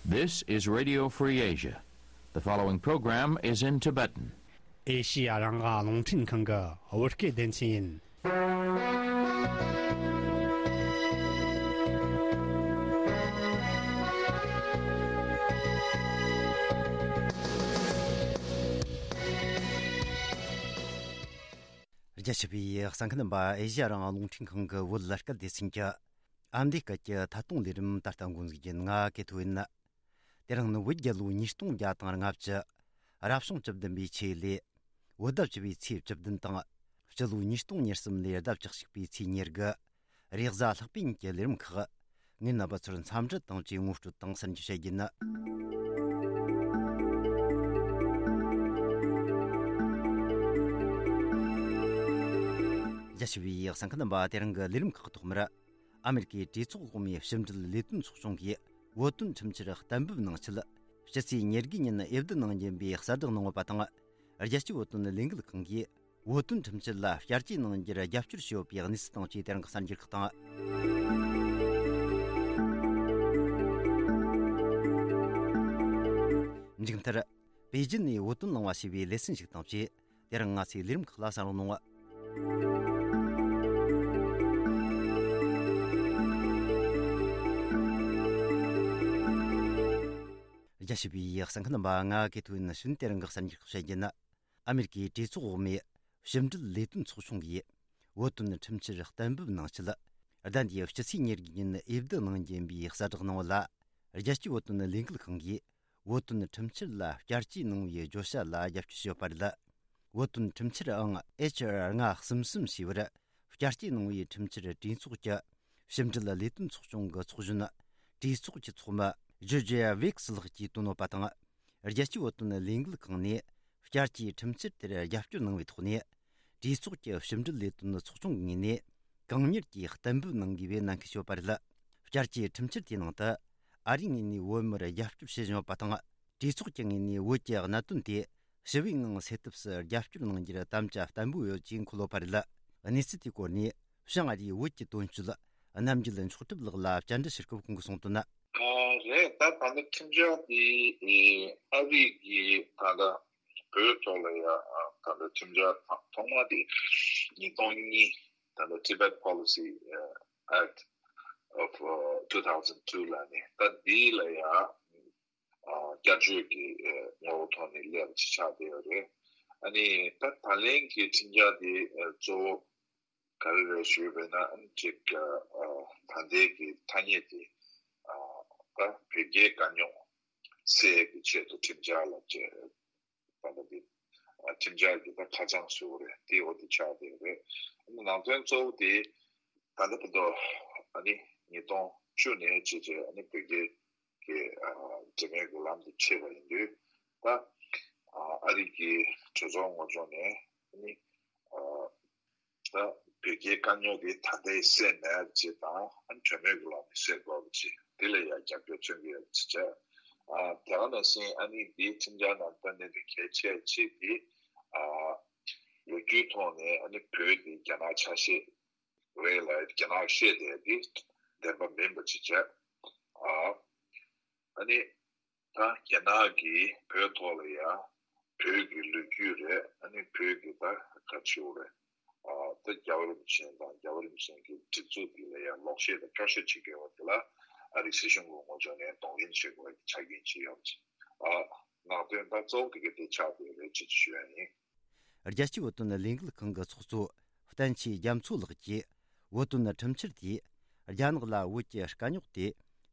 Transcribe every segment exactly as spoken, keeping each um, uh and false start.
This is Radio Free Asia. The following program is in Tibetan. ཨེ་ཤི་ཡ་རང་དབང་རླུང་འཕྲིན་ཁང་གི་བོད་སྐད་སྡེ་ཚན་ཡིན། རྒྱ་ཆེ་བའི་གསན་མཁན་རྣམ་པ། ཨེ་ཤི་ཡ་རང་དབང་རླུང་འཕྲིན་ཁང་གི་བོད་སྐད་སྡེ་ཚན་གྱི་ཨ་མདོའི་སྐད་ཀྱི་ཐད་གཏོང་ལས་རིམ་ད་ལྟ་འགོ་འཛུགས་རྒྱུ་ཡིན། ང་ཀེ་ཐོ་ཡིན། དེ་རིང་ནི་བོད་རྒྱལ་ལོ་ཉིས་སྟོང་བརྒྱ་དང་ལྔ་བཅུ། རབ་བྱུང་བཅུ་བདུན་པའི་ཆེད་ལས། བོད་ཟླ་བཅུ་པའི་ཚེས་བཅུ་བདུན་དང་། སྤྱི་ལོ་ཉིས་སྟོང་ཉེར་གསུམ་ལོའི་ཟླ་བཅུ་གཅིག་པའི་ཚེས་ཉེར་དགུ། རེས་གཟའ་ལྷག་པའི་ཉིན་གྱི་ལས་རིམ་ཁག། ངས་རྣམ་པ་ཚོར་འཚམས་འདྲི་དང་བཅས་ངོ་སྤྲོད་དང་གསར་འགྱུར་བཤད་རྒྱུ་ཡིན། རྒྱ་ཆེ་བའི་གསན་མཁན་རྣམ་པ། དེ་རིང་གི་ལས་རིམ་ཁག་ཐོག་མར། ཨ་མེ་རི་ཀའི་གྲོས་ཚོགས་འོག་མའི་ཕྱི་འབྲེལ་ལས་དོན་ཚོགས་ཆུང་གིས་བོད་དོན་ཁྲིམས་འཆར་གཏན་འབེབས་གནང་ཆེད། ཕྱི་ཚེས་ཉེར་དགུ་ཉིན་འོས་བསྡུ་གནང་རྒྱུ་ཡིན་པའི་གསལ་བསྒྲགས་གནང་ཡོད་པ་དང་། རྒྱལ་སྤྱིའི་བོད་དོན་ལས་འགུལ་ཁང་གིས་བོད་དོན་ཁྲིམས་འཆར་ལ་བསྐྱར་བཅོས་གནང་རྒྱུར་རྒྱབ་སྐྱོར་བྱས་ཡོད་པའི་གནས་ཚུལ་དང་བཅས་དེ་རིང་གི་གསར་འགྱུར་ཁག་དང་། མཇུག་མཐར། པེ་ཅིན་ནས་བོད་དོན་གླེང་བ་ཞེས་པའི་ལེ་ཚན་ཞིག་དང་བཅས། དེ་རིང་ང་ཚོའི་ལས་རིམ་ཁག་ལ་གསན་རོགས་གནང་། རྒྱ་ཆེ་བའི་གསན་མཁན་རྣམ་པ། ང་ཀེ་ཐོ་ཡིན། ཞུན། དེ་རིང་གི་གསར་འགྱུར་ཁག་བཤད་རྒྱུ་ཡིན། ཨ་མེ་རི་ཀའི་གྲོས་ཚོགས་འོག་མའི་ཕྱི་འབྲེལ་ལས་དོན་ཚོགས་ཆུང་གིས་བོད་དོན་ཁྲིམས་འཆར་གཏན་འབེབས་གནང་ཆེད། ཟླ་འདིའི་ཕྱི་ཚེས་ཉེར་དགུ་ཉིན་འོས་བསྡུ་གནང་རྒྱུ་ཡིན་པའི་གསལ་བསྒྲགས་གནང་བ་ལ། རྒྱལ་སྤྱིའི་བོད་དོན་ལས་འགུལ་ཁང་གིས་བོད་དོན་ཁྲིམས་འཆར་ལ་བསྐྱར་བཅོས་གནང་བའི་བརྗོད་བྱ་ལ་རྒྱབ་སྐྱོར་བྱས་ཡོད་པ་རེད། བོད་དོན་ཁྲིམས་འཆར་ཨང་ཨེཆ་ཨར་ལྔ་གསུམ་གསུམ་ཞེས་པར་བསྐྱར་བཅོས་གནང་བའི་ཁྲིམས་འཆར་གྲོས་ཚོགས་ཀྱི་ཕྱི་འབྲེལ་ལས་དོན་ཚོགས་ཆུང་གི་ཚོགས་གཞོན། གྲོས་ཚོགས་ཀྱི་ཚོགས་མི་ཇོ་ཇེ་ཝིག་སི་ལགས་ཀྱིས་བཏོན་ཡོད་པ་དང་། རྒྱལ་སྤྱིའི་བོད་དོན་ལས་འགུལ་ཁང་ནས་བསྐྱར་བཅོས་ཁྲིམས་འཆར་དེར་རྒྱབ་སྐྱོར་གནང་བའི་ཐོག་ནས། གྲོས་ཚོགས་ཀྱི་ཕྱི་འབྲེལ་ལས་དོན་ཚོགས་ཆུང་གི་ངོས་ནས་གང་མྱུར་གྱིས་གཏན་འབེབས་གནང་དགོས་པའི་ནན་སྐུལ་བྱས་ཡོད་པ་རེད། བསྐྱར་བཅོས་ཁྲིམས་འཆར་དེའི་ནང་དུ། ཨ་རིའི་ངོས་ནས་བོད་མིར་རྒྱབ་སྐྱོར་བྱེད་བཞིན་ཡོད་པ་དང་། གྲོས་ཚོགས་ཀྱི་ངོས་ནས་བོད་ཀྱི་གནད་དོན་དེ་ཞི་བའི་ངང་སེལ་ཐབས་སུ་རྒྱབ་སྐྱོར་གནང་རྒྱུར་དམ་བཅའ་བརྟན་པོ་ཡོད་ཅེས་འཁོད་ཡོད་པ་རེད། གནས་ཚུལ་དེའི་སྐོར་ནས་བྱང་ཨ་རིའི་བོད་ཀྱི་དོན་གཅོད་རྣམ་རྒྱལ་མཆོག་གྲུབ་ལགས་ལ་བཅར་འདྲི་ཞུ་སྐབས་ཁོང་གིས་གསུངས་དོན། ཨ། རེད། ད་ད་ལྟ་ཁྲིམས་འཆར་དེ་ཨ་རི་གི་ད་ལྟ་བོད་ཐོག་ལ་ཡ་ད་ལྟ་ཁྲིམས་འཆར་ཐོག་མ་དེ་ཉིས་སྟོང་གཉིས། ད་ལྟ་Tibet Policy Act of two thousand two ལབ་ནས། ད་འདི་ལ་ཡ་བསྐྱར་བཅོས་ཀྱི་ངོ་བོ་ཐོག་ནས་སླེབས་ཅིག་ཆགས་བསྡད་ཡོད་རེད། ཨ་ནི་ད་ད་ལན་གྱི་ཁྲིམས་འཆར་དེ་གཙོ་བོ་ག་རེ་རེད་ཞུས་པ་ཡིན་ན། ཨ་ནི་ཅིག་ད་ལྟའི་གི་ཐ་སྙད་དེ་ད་བོད་རྒྱའི་དཀའ་རྙོག་སེལ་གྱི་ཆེད་དུ་ཁྲིམས་འཆར་ལ་བྱས། ད་ལྟ་འདི་ཁྲིམས་འཆར་གྱི་ད་ཁ་བྱང་བཟོས་པ་རེད། དེ་འོ་དེ་ཆགས་བསྡད་ཡོད་རེད། ཨ་ནི་ནང་དོན་གཙོ་བོ་དེ་ད་ལྟ་བར་དུ་ཨ་ནི་ཉིས་སྟོང་བཅུ་ནས་བྱས་བྱས་ཨ་ནི་བོད་རྒྱའི་གི་ཨ་འབྲེལ་མོལ་གྱི་ལམ་དུ་ཆས་པ་ཡིན་དུས། ད་ཨ་རི་གི་གྲོས་ཚོགས་ངོས་ཕྱོགས་ནས་ཨ་ནི་ཨ་ད་བོད་རྒྱའི་དཀའ་རྙོག་དེ་ད་ལྟའི་སེལ་མེད་ཅེས་དང་། ཨ་ནི་གྲོས་མོལ་གྱི་ལམ་ནས་སེལ་དགོས་པ་ཅེས། དེ་ལ་ཡང་རྒྱབ་སྐྱོར་མཚོན་གྱི་ཡོད་ཅེས་བྱས། ཨ་དེ་ག་ནང་བཞིན་ཨ་ནི་འདིའི་ཁྲིམས་འཆར་ནང་ད་གནད་དོན་གལ་ཆེ་གཅིག་དེ། ཨ་ལོ་རྒྱུས་ཐོག་ནས་ཨ་ནི་བོད་དེ་རྒྱ་ནག་ཆ་ཤས་རེད་ལ། རྒྱ་ནག་བཤད་བསྡད་དེ་བདེན་པ་མིན་པ་ཅིག་བྱས། ཨ་ཨ་ནི་ད་རྒྱ་ནག་གིས་བོད་ཐོག་ལ་ཡ་བོད་ཀྱི་ལོ་རྒྱུས་རེད། ཨ་ནི་བོད་ཀྱི་ད་ག་ཅིའུ་རེད། ཨ་ད་རྒྱལ་བ་རིན་པོ་ཆེ་དང་རྒྱལ་བ་རིན་པོ་ཆེ་གི་སྒྲིག་འཛུགས་འདི་ལ་ཡ་ལོག་བཤད་དང་སྐྱོར་བཤད་བྱེད་དགོས་པ་དེ་ལ་ཨ་རིའི་སྲིད་གཞུང་གི་ངོས་ཕྱོགས་ནས་གདོང་ལེན་བྱེད་དགོས་པའི་ཆ་རྐྱེན་ཅིག་ཡོད་ཅེས། ཨ་ནང་དོན་ད་གཙོ་བོ་དེ་ག་དེ་ཆགས་བསྡད་རེད་ཅེས་ཞུ་ཡ་ཡིན། རྒྱལ་སྤྱིའི་བོད་དོན་ལས་འགུལ་ཁང་གི་ཚོགས་གཙོ་བསྟན་ཆོས་རྒྱ་མཚོ་ལགས་ཀྱིས། བོད་དོན་ཁྲིམས་འཆར་དེས་རྒྱ་ནག་ལ་བོད་ཀྱི་དཀའ་རྙོག་དེ་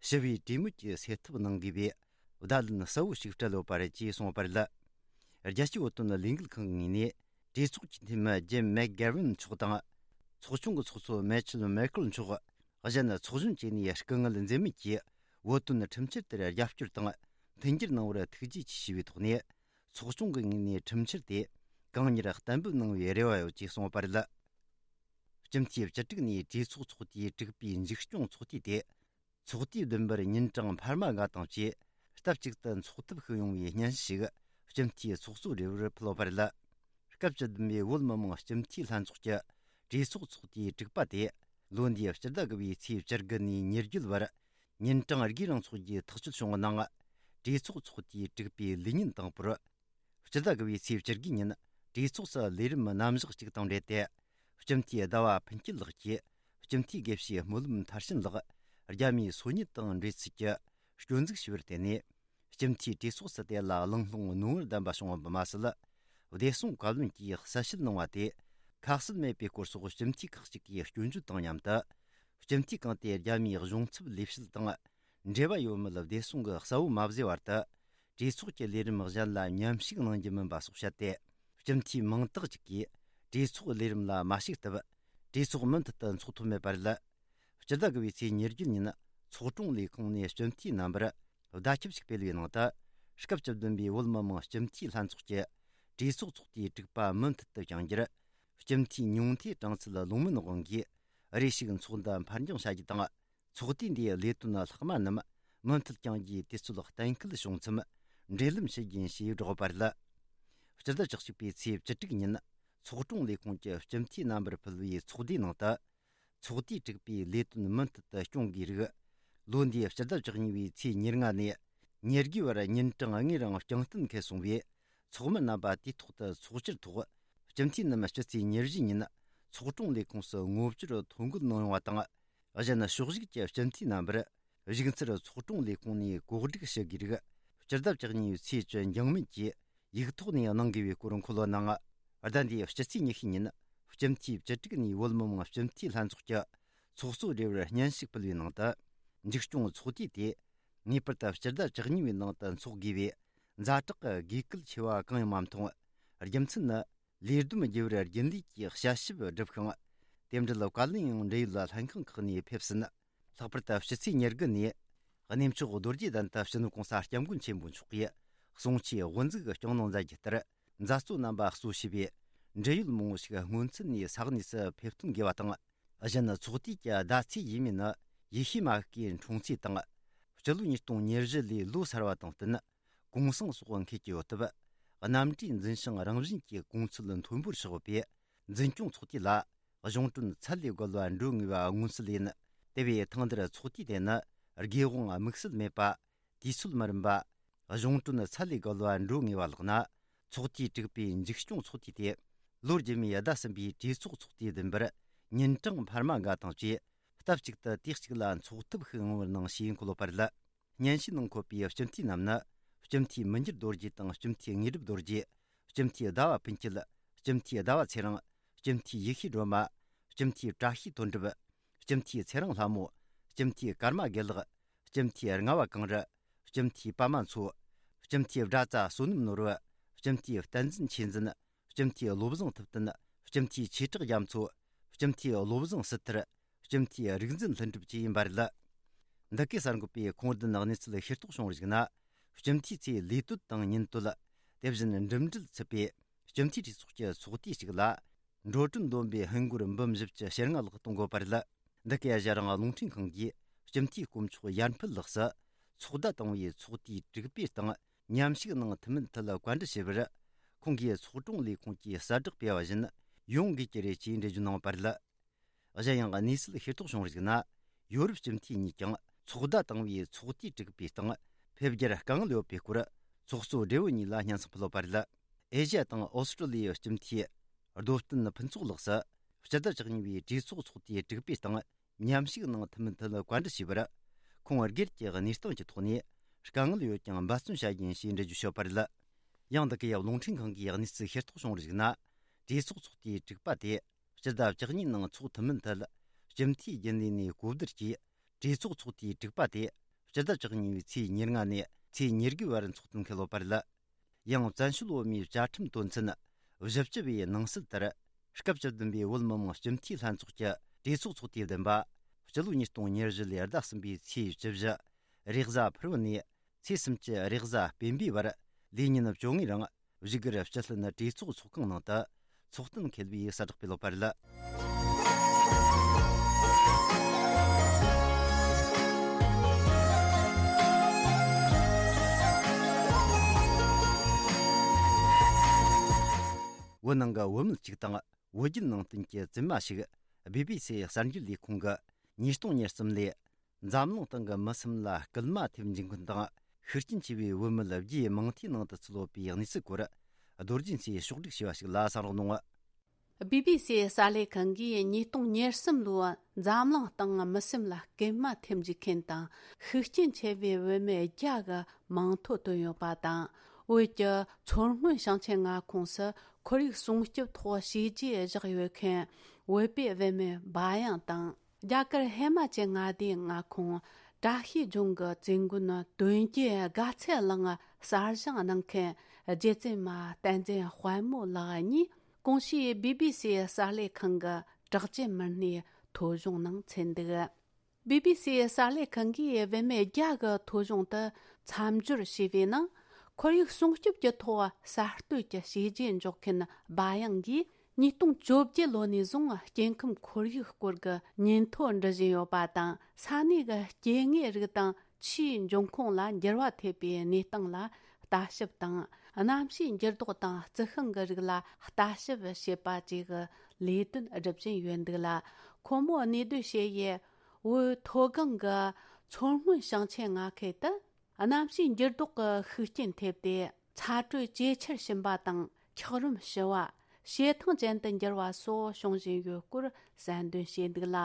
ཞི་བའི་གྲོས་མོལ་གྱིས་སེལ་ཐབས་གནང་དགོས་པའི་བརྡ་ལན་གསལ་བོ་ཞིག་སྤྲད་ཡོད་པ་རེད་ཅེས་གསུངས་པ་རེད། རྒྱལ་སྤྱིའི་བོད་དོན་ལས་འགུལ་ཁང་གི་ངོས་ནས་གྲོས་ཚོགས་ཀྱི་འཐུས་མི་ཇིམ་མེག་གྷེ་རན་མཆོག་དང་། ཚོགས་ཆུང་གི་ཚོགས་གཙོ་མེ་ཆལ་མེ་ཁེལ་མཆོག། གཞན་ཚོགས་གཞོན་བཅས་ནས་སྐུ་ངལ་འཛེམས་མེད་ཀྱིས་བོད་དོན་ཁྲིམས་འཆར་དེར་རྒྱབ་སྐྱོར་དང་མཐུན་འགྱུར་གནང་བར་ཐུགས་རྗེ་ཆེ་ཞུས་པའི་ཐོག་ནས། ཚོགས་ཆུང་གི་ངོས་ནས་ཁྲིམས་འཆར་དེ་གང་མྱུར་གཏན་འབེབས་གནང་བའི་རེ་བ་ཡོད་ཅེས་གསུངས་པ་རེད། སྤྱི་འཐུས་བཅུ་དྲུག་ནས་གྲོས་ཚོགས་ཚོགས་དུས་དྲུག་པའི་མཇུག་སྐྱོང་ཚོགས་དུས་དེ། ཚོགས་དུས་བདུན་པར་ཉིན་གྲངས་འཕར་མ་ལྔ་དང་བཅས་སྟབས་གཅིག་ཏུ་འཚོགས་ཐབས་ཤིག་ཡོང་བའི་སྙན་ཞུ་ཞིག་སྤྱི་འཐུས་ཚོགས་གཙོ་རེ་བར་ཕུལ་བ་རེད། སྐབས་བཅུ་བདུན་པའི་བོད་མི་མང་སྤྱི་འཐུས་ལྷན་ཚོགས་ཀྱི་གྲོས་ཚོགས་ཚོགས་དུས་དྲུག་པ་དེ་ལོ་འདིའི་སྤྱི་ཟླ་དགུ་པའི་ཚེས་བཅུ་དགུ་ནས་ཉེར་བརྒྱད་བར་ཉིན་གྲངས་དགུའི་རིང་འཚོགས་རྒྱུའི་ཐག་གཅོད་བྱུང་བའི་ནང་། གྲོས་ཚོགས་ཚོགས་དུས་དྲུག་པའི་ལས་ཉིན་དང་པོར། སྤྱི་ཟླ་དགུ་བའི་ཚེས་བཅུ་དགུ་ཉིན་གྲོས་ཚོགས་སུ་ལས་རིམ་རྣམ་གཞག་གཅིག་དང་འབྲེལ་ཏེ། སྤྱི་འཐུས་ཟླ་བ་ཕུན་སྐྱིད་ལགས་ཀྱིས་སྤྱི་འཐུས་དགེ་བཤེས་སྨོན་ལམ་མཐར་ཕྱིན་ལགས་རྒྱ་མིའི་སོ་ཉུལ་དང་འབྲེལ་ཚུལ་གྱི་སྐྱོན་འཛུགས་ཞུ་བར་བརྟེན་ནས། སྤྱི་འཐུས་གྲོས་ཚོགས་སུ་དེ་ལ་གླེང་སློང་རྣོ་ངར་ལྡན་པ་བྱུང་བ་མ་ཟད། བདེ་སྲུང་བཀའ་བློན་གྱིས་གསལ་བཤད་གནང་བ་དེ་ཁ་གསལ་མེད་པའི་སྐོར་སོགས་སྤྱི་འཐུས་ཁག་ཅིག་གིས་སྐྱོན་བརྗོད་དང་མཉམ་དུ། སྤྱི་འཐུས་གང་དེ་རྒྱ་མིའི་གཞུང་ཚབ་ལས་བྱེད་དང་འབྲེལ་བ་ཡོད་མེད་བདེ་སྲུང་གི་གསལ་བོ་མ་བཟོས་བར་དུ། གྲོས་ཚོགས་ཀྱི་ལས་རིམ་གཞན་ལ་མཉམ་ཞུགས་གནང་རྒྱུ་མིན་པ་སོགས་བཤད་དེ། སྤྱི་འཐུས་མང་དག་ཅིག་གིས་གྲོས་ཚོགས་ལས་རིམ་ལ་མ་ཞུགས་སྟབས། གྲོས་ཚོགས་མུ་མཐུད་དུ་འཚོགས་ཐུབ་མེད་པ་རེད། སྤྱི་ཟླ་དགུ་བའི་ཚེས་ཉེར་བརྒྱད་ཉིན་ཚོགས་དྲུང་ལས་ཁུངས་ནས་སྤྱི་འཐུས་རྣམ་པར་བརྡ་ཁྱབ་ཞིག་སྤེལ་བའི་ནང་དུ། སྐབས་བཅུ་བདུན་པའི་བོད་མི་མང་སྤྱི་འཐུས་ལྷན་ཚོགས་ཀྱི་གྲོས་ཚོགས་ཚོགས་དུས་དྲུག་པ་མུ་མཐུད་དུ་བསྐྱང་རྒྱུར། སྤྱི་འཐུས་ཉུང་མཐའི་གྲངས་ཚད་ལོངས་མིན་དབང་གིས་རེ་ཞིག་ཚོགས་འདུ་འཕར་འགྱངས་བྱ་རྒྱུ་དང་། ཚོགས་དུས་འདིའི་ལས་དོན་ལྷག་མ་རྣམས་མུ་མཐུད་བསྐྱང་རྒྱུའི་དུས་ཚོད་གཏན་འཁེལ་བྱུང་མཚམས་འབྲེལ་ལམ་ཞུ་རྒྱུ་ཡིན་ཞེས་བསྒྲགས་པ་རེད། སྤྱི་ཟླ་བཅུ་གཅིག་པའི་ཚེས་བཅུ་དྲུག་ཉིན་ཚོགས་དྲུང་ལས་ཁུངས་ཀྱི་སྤྱི་འཐུས་རྣམ་པར་ཕུལ་བའི་ཚོགས་འདུའི་ནང་དུ། ཚོགས་དུས་དྲུག་པའི་ལས་དོན་མུ་མཐུད་དུ་སྐྱོང་དགོས་རིགས། ལོ་འདིའི་སྤྱི་ཟླ་བཅུ་གཉིས་པའི་ཚེས་ཉེར་ལྔ་ནས་ཉེར་དགུའི་བར་ཉིན་གྲངས་ལྔའི་རིང་བསྐྱངས་གཏན་འཁེལ་སོང་བས། ཚོགས་མི་རྣམ་པ་དུས་ཐོག་ཏུ་ཚོགས་བཅར་ཐོག་སྤྱི་འཐུས་རྣམས་སྤྱི་ཚེས་ཉེར་བཞི་ཉིན་ཚོགས་དྲུང་ལས་ཁུངས་སུ་ངོ་བཅར་ཐོ་འགོད་གནང་ཡོང་བ་དང་། གཞན་ཕྱོགས་བཞུགས་ཀྱི་སྤྱི་འཐུས་རྣམ་པར་བཞུགས་ཚུལ་ཚོགས་དྲུང་ལས་ཁུངས་ནས་གོ་སྒྲིག་ཞུ་དགོས་རིགས། སྤྱི་ཟླ་བཅུ་གཉིས་པའི་ཚེས་བཅུ་འགྱངས་མེད་ཀྱིས་ཡིག་ཐོག་ནས་གནང་དགོས་པའི་སྐོར་འཁོད་ཡོད་ནའང་། ཟླ་འདིའི་སྤྱི་ཚེས་ཉི་ཤུ་ཉིན་སྤྱི་འཐུས་བཅུ་དྲུག་ནས་བོད་མི་མང་སྤྱི་འཐུས་ལྷན་ཚོགས་ཀྱི་ཚོགས་གཙོ་སྦྲེལ་བར་སྙན་ཞུ་ཕུལ་བའི་ནང་དུ། མཇུག་སྐྱོང་ཚོགས་དུས་དེ་ངེས་པར་དུ་སྤྱི་ཟླ་བཅུ་གཉིས་པའི་ནང་དུ་འཚོགས་དགོས་པའི་ཛ་དྲག་གི་དགོས་གལ་ཆེ་བ་གང་ཡང་མ་མཐོང་། རྒྱུ་མཚན་ནི། ལས་བསྡོམས་བགྱི་བར་རྒྱུན་ལས་ཀྱིས་དཔྱད་ཞིབ་བསྒྲུབས་ཤིང་། དེ་འབྲེལ་བཀའ་བློན་ཡང་འབྲེལ་ཡོད་ལྷན་ཁང་ཁག་ནས་ཕེབས་ཟིན། ལྷག་པར་དུ་སྤྱི་ཚེས་ཉེར་དགུ་ནས་གནས་མཆོག་རྡོ་རྗེ་གདན་དུ་སྤྱི་ནོར་གོང་ས་སྐྱབས་མགོན་ཆེན་པོ་མཆོག་གིས་གསུང་ཆོས་དབུ་འཛུགས་སྐྱོང་གནང་མཛད་རྒྱུ་ལྟར། མཛད་གཙོ་རྣམ་པ་གཙོ་བྱས་པའི་འབྲེལ་ཡོད་མང་པོ་ཞིག་སྔོན་ཚུད་ནས་ས་གནས་སུ་ཕེབས་ཐོན་དགོས་པ་དང་། གཞན་ཚོགས་དུས་ཀྱི་ཟླ་ཚེས་ཡས་མས་ནི་ཡེ་ཤུ་མ་ཤི་ཀའི་འཁྲུངས་ཚེས་དང་། སྤྱི་ལོ་ཉིས་སྟོང་ཉེར་བཞི་ལོའི་ལོ་གསར་བ་དང་བསྟུན། གུང་སེང་སོགས་འཁེལ་གྱི་ཡོད་སྟབས། གནམ་གྲུའི་འཛིན་ཞིང་རང་བཞིན་གྱི་གོང་ཚད་མཐོན་པོར་ཆགས་ཡོད་པས། འཛིན་སྐྱོང་ཚོགས་དུས་ལ་གཞུང་གྲོན་ཚད་ལས་བརྒལ་བ་འགྲོ་ངེས་པ་མངོན་གསལ་ཡིན། དེ་བས་ཐེངས་འདིར་ཚོགས་དུས་དེ་ནི་དགེ་དབང་དམིགས་བསལ་མེད་པ། དུས་ཚོད་མི་རིམ་པ། གཞུང་གྲོན་ཚད་ལས་བརྒལ་བ་འགྲོ་ངེས་པ་ལགས་ན། ཚོགས་དུས་དྲུག་པའི་མཇུག་སྐྱོང་ཚོགས་དུས་ཏེ། ལོ་རྗེས་མའི་ཟླ་གསུམ་པའི་གྲོས་ཚོགས་ཚོགས་དུས་བདུན་པར་ཉིན་གྲངས་འཕར་མ་འགའ་དང་བཅས་སྟབས་གཅིག་ཏུ་དུས་གཅིག་ལ་འཚོགས་ཐབས་ཤིག་ཡོང་བར་གནང་ཞེས་འཁོད་ཡོད་པ་རེད། སྙན་ཞུའི་ནང་འཁོད་པའི་སྤྱི་འཐུས་རྣམས་ནི། སྤྱི་འཐུས་མི་འགྱུར་རྡོ་རྗེ་དང་སྤྱི་འཐུས་དངོས་གྲུབ་རྡོ་རྗེ། སྤྱི་འཐུས་ཟླ་བ་ཕུན་སྐྱིད། སྤྱི་འཐུས་ཟླ་བ་ཚེ་རིང་། སྤྱི་འཐུས་ཡེ་ཤེས་སྒྲོལ་མ། སྤྱི་འཐུས་བཀྲ་ཤིས་དོན་གྲུབ། སྤྱི་འཐུས་ཚེ་རིང་ལྷ་མོ། སྤྱི་འཐུས་ཀརྨ་དགེ་ལེགས། སྤྱི་འཐུས་རྔ་བ་གངས་རི། སྤྱི་འཐུས་པདྨ་མཚོ། སྤྱི་འཐུས་སྒྲ་རྩ་བསོད་ནམས་ནོར་བུ། སྤྱི་འཐུས་བསྟན་འཛིན་ཆོས་འཛིན། སྤྱི་འཐུས་བློ་བཟང་ཐུབ་བསྟན། སྤྱི་འཐུས་ཆོས་གྲགས་རྒྱ་མཚོ། སྤྱི་འཐུས་བློ་བཟང་སྲིད་ཐར། སྤྱི་འཐུས་རིག་འཛིན་ལྷུན་གྲུབ་བཅས་ཡིན་པ་རེད། འདི་གའི་གསར་འགོད་པས་ཁུངས་ལྡན་གནས་ཚུལ་ཤེས་རྟོགས་བྱུང་བར་གཞིགས་ན། སྤྱི་འཐུས་ཚོའི་ལས་དོན་དང་ཉིན་དོད། དེ་བཞིན་འགྲིམ་འགྲུལ་ཚུད་པའི་སྤྱི་འཐུས་གྲོས་ཚོགས་ཀྱི་ཚོགས་དུས་གཅིག་ལ། འགྲོ་གྲོན་བསྡོམས་པའི་ཧིན་སྒོར་འབུམ་བཞི་བཅུ་ཞེ་ལྔ་ལྷག་གཏོང་དགོས་པ་རེད། འདི་གའི་གཞི་རང་རླུང་འཕྲིན་ཁང་གིས་སྤྱི་འཐུས་དཀོན་མཆོག་ཡར་འཕེལ་ལགས་སུ་ཚོགས་བརྡ་བཏང་བའི་ཚོགས་དུས་དྲུག་པའི་སྟེང་མཉམ་ཞུགས་གནང་ཐུབ་མིན་ཐད་བཀའ་འདྲི་ཞུས་པར། ཁོང་གིས་ཚོགས་དྲུང་ལས་ཁུངས་ཀྱིས་གསལ་བསྒྲགས་སྤེལ་བ་བཞིན་ཡོང་དགོས་ཀྱི་རེད་ཅེས་འགྲེལ་བརྗོད་གནང་བ་རེད། གཞན་ཡང་གནས་ཚུལ་ཤེས་རྟོགས་བྱུང་བར་གཞིགས་ན། ཡོ་རོབ་སྤྱི་འཐུས་གཉིས་ཀྱང་ཚོགས་བརྡ་བཏང་བའི་ཚོགས་དུས་དྲུག་པའི་སྟེང་ཕེབས་རྒྱུར་དཀའ་ངལ་ཡོད་པའི་སྐོར་ཚོགས་གཙོ་སྦྲེལ་བོ་གཉིས་ལ་སྙན་སེང་ཕུལ་ཡོད་པ་རེད། ཨེ་ཤ་ཡ་དང་ཨོ་སི་ཀྲོ་ལི་ཡའི་སྤྱི་འཐུས་རྡོ་བསྟན་ཕུན་ཚོགས་ལགས་སུ་སྤྱི་ཟླ་བཅུ་གཉིས་པའི་གྲོས་ཚོགས་ཚོགས་དུས་དྲུག་པའི་སྟེང་མཉམ་ཞུགས་གནང་ཐུབ་མིན་ཐད་བཀའ་འདྲི་ཞུས་པར། ཁོང་སྒེར་གྱི་གནས་སྟངས་ཀྱི་ཐོག་ནས་དཀའ་ངལ་ཡོད་ཀྱང་འབད་བརྩོན་བྱ་རྒྱུ་ཡིན་ཞེས་འགྲེལ་བརྗོད་བྱས་ཡོད་པ་རེད། ཡང་འདི་གའི་རླུང་འཕྲིན་ཁང་གིས་གནས་ཚུལ་ཤེས་རྟོགས་བྱུང་བར་གཞིགས་ན། གྲོས་ཚོགས་ཚོགས་དུས་དྲུག་པ་དེ། སྤྱི་ཟླ་བཅུ་གཉིས་ནང་འཚོགས་ཐུབ་མིན་ཐད། སྤྱི་འཐུས་རྒྱུན་ལས་ནས་གོ་བསྡུར་གྱིས། གྲོས་ཚོགས་ཚོགས་དུས་དྲུག་པ་དེ། སྤྱི་ཟླ་བཅུ་གཉིས་པའི་ཚེས་ཉེར་ལྔ་ནས་ཚེས་ཉེར་དགུའི་བར་འཚོགས་ཐུབ་འཁེལ་ཡོད་པ་རེད། ཡང་བཙན་བྱོལ་བོད་མིའི་བཅའ་ཁྲིམས་དོན་ཚན་བཞི་བཅུ་པའི་ནང་གསལ་ལྟར། སྐབས་བཅུ་བདུན་པའི་བོད་མི་མང་སྤྱི་འཐུས་ལྷན་ཚོགས་ཀྱི་གྲོས་ཚོགས་ཚོགས་དུས་བདུན་པ། སྤྱི་ལོ་ཉིས་སྟོང་ཉེར་བཞི་ལོའི་ཟླ་གསུམ་པའི་ཚེས་བཅུ་བཞི། རེས་གཟའ་ཕུར་བུ་ནས། ཚེས་སུམ་ཅུ་རེས་གཟའ་སྤེན་པའི་བར་ལས་ཉིན་བཅོ་ལྔའི་རིང་བཞུགས་སྒར་སྤྱི་ལྷན་གྲོས་ཚོགས་ཚོགས་ཁང་ནང་དུ་ཚོགས་གཏན་འཁེལ་བའི་གསལ་བསྒྲགས་སྤེལ་ཡོད་པ་རེད། བོད་ནང་གི་བུད་མེད་ཅིག་དང་བོད་བརྒྱུད་ནང་བསྟན་གྱི་བཙུན་མ་ཞིག་བི་བི་སི་གསར་འགྱུར་ལས་ཁུངས་ཀྱི་ཉིས་སྟོང་ཉེར་གསུམ་ལོའི། འཛམ་གླིང་སྟེང་གི་མི་སེམས་ལ་སྐུལ་མ་ཐེབས་འཇུག་མཁན་དང་ ཤུགས་རྐྱེན་ཆེ་བའི་བུད་མེད་བརྒྱའི་མིང་མཐའི་ནང་དུ་ཚུད་ཡོད་པའི་གནས་ཚུལ་སྐོར། རྡོ་རྗེ་མཚོས་ཕྱོགས་བསྒྲིགས་བྱས་པ་ཞིག་ལ་གསན་རོགས་གནང་། བི་བི་སིའི་གསར་ལས་ཁང་གིས་ཉིས་སྟོང་ཉེར་གསུམ་ལོའི་འཛམ་གླིང་སྟེང་མི་སེམས་ལ་སྐྱེལ་མ་ཐེབས་འཇུག་མཁན་དང་ཤུགས་རྐྱེན་ཆེ་བའི་བུད་མེད་བརྒྱ་གི་མིང་ཐོ་བཏོན་ཡོད་པ་དང་། བོད་ཀྱི་མཚོ་སྔོན་ཞིང་ཆེན་མངའ་ཁོངས་སུ་ཁོར་ཡུག་སྲུང་སྐྱོབ་ཐོག་བྱས་རྗེས་བཞག་ཡོད་མཁན་བོད་པའི་བུད་མེད་བ་ཡང་དང་། རྒྱ་གར་ཧི་མ་ཅལ་མངའ་སྡེའི་མངའ་ཁོངས་བཀྲ་ཤིས་ལྗོངས་ཀྱི་བཙུན་དགོན་དོན་རྒྱལ་དགའ་ཚལ་གླིང་གསར་བཞེངས་གནང་མཁན་རྗེ་བཙུན་མ་བསྟན་འཛིན་དཔལ་མོ་ལགས་གཉིས་གོང་ཞུས་བི་བི་སིའི་གསར་ལས་ཁང་གི་གྲགས་ཅན་མི་སྣའི་ཐོ་གཞུང་ནང་ཚུད་འདུག། བི་བི་སིའི་གསར་ལས་ཁང་གིས་བུད་མེད་བརྒྱ་གི་ཐོ་གཞུང་དུ་མཚམས་སྦྱོར་བྱས་པའི་ནང་། ཁོར་ཡུག་སྲུང་སྐྱོབ་ཀྱི་ཐོག་གསར་གཏོད་ཀྱི་བྱས་རྗེས་འཇོག་མཁན་བ་ཡང་གིས་ཉིས་སྟོང་བཅོ་བརྒྱད་ལོ་ནས་བཟུང་སྐྱེ་ཁམས་ཁོར་ཡུག་སྐོར་གྱི་ཉིན་ཐོ་འབྲི་བཞིན་ཡོད་པ་དང་། ས་གནས་ཀྱི་སྐྱེ་དངོས་རིགས་དང་ཆུའི་འབྱུང་ཁུངས་ལ་འགྱུར་བ་ཐེབས་པའི་གནས་སྟངས་ལ་ལྟ་ཞིབ་དང་། གནམ་གཤིས་འགྱུར་ལྡོག་དང་རྩི་ཤིང་གི་རིགས་ལ་ལྟ་ཞིབ་བྱེད་པ་བཅས་ཀྱི་ལས་དོན་སྒྲུབ་བཞིན་ཡོད་འདུག་ལ། ཁོ་མོ་གནས་སྡོད་བྱེད་ཡུལ་བོད་མཐོ་སྒང་གི་མཚོ་སྔོན་ཞིང་ཆེན་མངའ་ཁུལ་དུ། གནམ་གཤིས་འགྱུར་ལྡོག་གི་ཤུགས་རྐྱེན་ཐེབས་ཏེ། ཚ་དྲོད་ཇེ་ཆེར་ཕྱིན་པ་དང་། འཁྱགས་རོམ་ཞི་བ། བྱེ་ཐང་ཅན་དུ་འགྱུར་བ་སོགས་བྱུང་བཞིན་ཡོད་སྐོར་གསལ་འདོན་བྱས་འདུག་ལ།